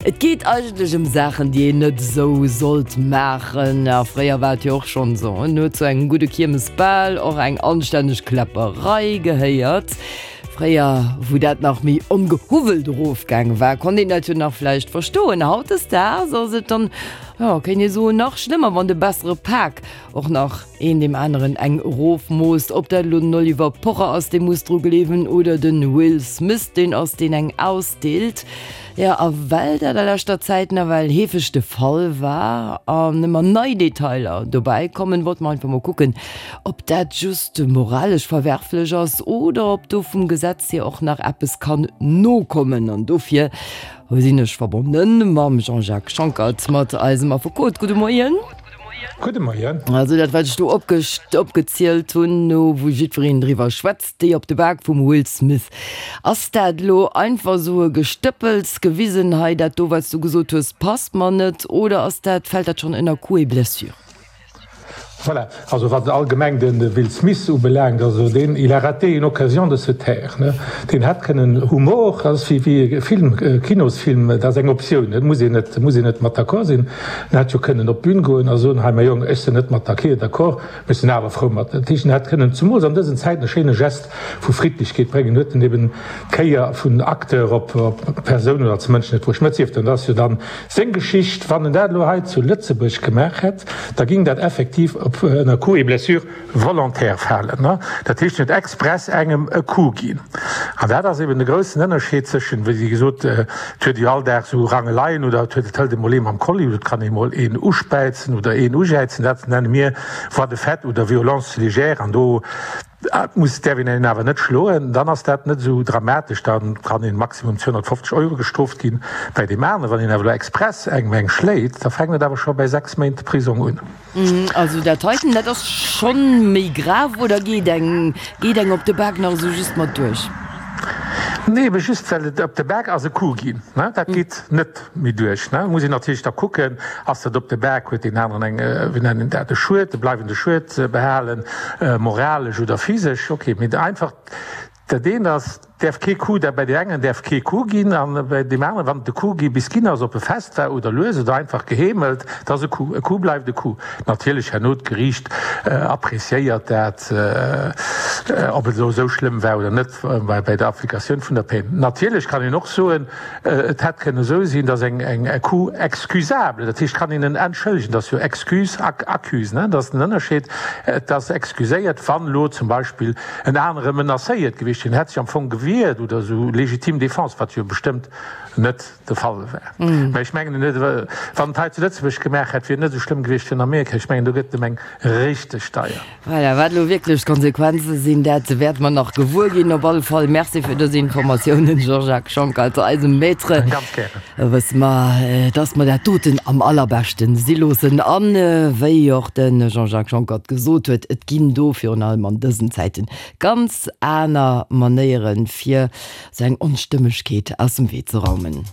Et geet eigentlech ëm Saachen, déi een net esou sollt maachen. A fréier war et jo och schonn esou, en huet zu engem gudde Kiermesbal och eng anstänneg Kläpperei gehéiert. Fréier, wou dat nach méi ongehuwwelt erofgaange war, konnt een dat jo nach vläicht verstoen. Hautdesdaags ass et dann, jo, kéint ee soen, nach schlëmmer, wann de bessere Pak och nach een deem aneren eng erofmoosst. Ob dat elo den Oliver Pocher ass, dee muss dru gleewen, oder de Will Smith, deen ass, deen eng ausdeelt. Jo, a well dat a leschter Zäit nawell heefeg de Fall war an ëmmer nei Detailer dobäi kommen, wollte mer einfach mol kucken, ob dat just moralesch verwerflech ass oder ob do vum Gesetz hier och nach eppes kann nokommen. An dofir sinn ech verbonne mam Jean-Jacques Schonckert, mat eisem Affekot. Gudde Moien. Gudde Moien. Also dat wat ech do opgezielt hunn, no wou jiddwereen driwwer schwätzt, déi op de Bak vum Will Smith. Ass dat elo einfach esou e Gestëppels gewisen, hei dat do wat s du gesot hues passt mer net, oder ass dat, fält dat schonn ënner Coups et blessures? Voilà, also wat allgemeng de Will Smith ubelaangt, also deen, il a raté une occasion de se taire, ne. Deen hätt kënnen, Humor ass wéi e Film, Kinosfilm, dat ass eng Optioun, dat muss een net, muss een net mat d'accord sinn. En hätt jo kënnen op d'Bün goen a soen, hei mäi Jong, ech sinn net mat der Kir d'accord, mee ech sinn awer frou mat. Dat heescht, en hätt kënnen zemools an dësen Zäiten e schéine Gest vu Friddlechkeet bréngen, huet en eben d'Kéier vun Acteur op Persoun oder als Mënsch net bruecht. Mä et sief dann, dat ass jo dann seng Geschicht. Wann en dat elo hei zu Lëtzebuerg gemaach hätt, da ging dat effektiv op ënner Coups et blessures volontaire falen. Dat heescht, en huet express engem e Coup ginn. An dat ass eben de groussen Ënnerscheed zwëschen, wéi gesot, et huet ee jo all Dag esou Rangeleien oder et huet, et hëlt emol ee mam Kolli oder et kann ee mol een uspäizen oder een ujäizen, dat nenne mir Voies de fait oder Violence légère an do muss, däerf een een awer net schloen. Dann ass dat net esou dramatesch, da kann een maximum 250 Euro gestrooft ginn. Bäi deem aneren, wann een awer elo express engem eng schléit, da fänkt et awer scho bäi 6 Méint Prisong un. Also dat heiten, dat ass schonn méi grav, oder geet eng, geet eng op de Bak nach esou just mat duerch? Nee, ebe just well et op de Bak ass e Coup ginn, ne, dat geet net méi duerch, ne. Muss een natierlech da kucken, ass dat op de Bak, huet deen aneren eng, wéi nennen een dat, e Schued, e bleiwende Schued behalen, moralesch oder physesch, okay, mee einfach Dat eent ass, däerf kee Coup, dat bei deem engen däerf kee Coup ginn a bei deem aneren, wann et e Coup gi bis ginn ass, ob e fest war oder lues oder einfach geheemelt, et ass e Coup. E Coup bleift e Coup. Natierlech herno d'Geriicht appréciéiert dat, ob et elo esou schlëmm war oder net bei der Applikatioun vun der Peine. Natierlech kann een och soen, Et hätt kënnen esou sinn, datt eng e Coup excusable, dat heescht, kann een en entschëllegen, dat ass jo excuse ac accuse, ne, dat ass den Ënnerscheed, et ass excuséiert, wann elo zum Beispill en anere menacéiert gewiescht wier, en hätt sech am Fong gewiert oder esou, légitime défense, wat jo bestëmmt net de Fall war. Mä ech mengen, en huet, wann et hei zu Lëtzebuerg gemaach hätt, wier et net esou schlëmm gewiescht wéi an Amerika. Ech mengen, do gëtt et em eng richteg deier. Voilà, wat elo wierklech d'Konsequenze sinn, dat wäerte mer nach gewuer ginn. Op alle Fall Merci fir dës Informatiounen, Jean-Jacques Schonckert, eisem Maître. Ganz gären. Wësse mer, dass mer dat doten am allerbeschten si loossen. An wéi och de Jean-Jacques Schonckert gesot huet, et ginn do virun allem an dësen Zäiten ganz aner Manéieren, fir esou eng Onstëmmegkeet aus dem Wee ze raumen.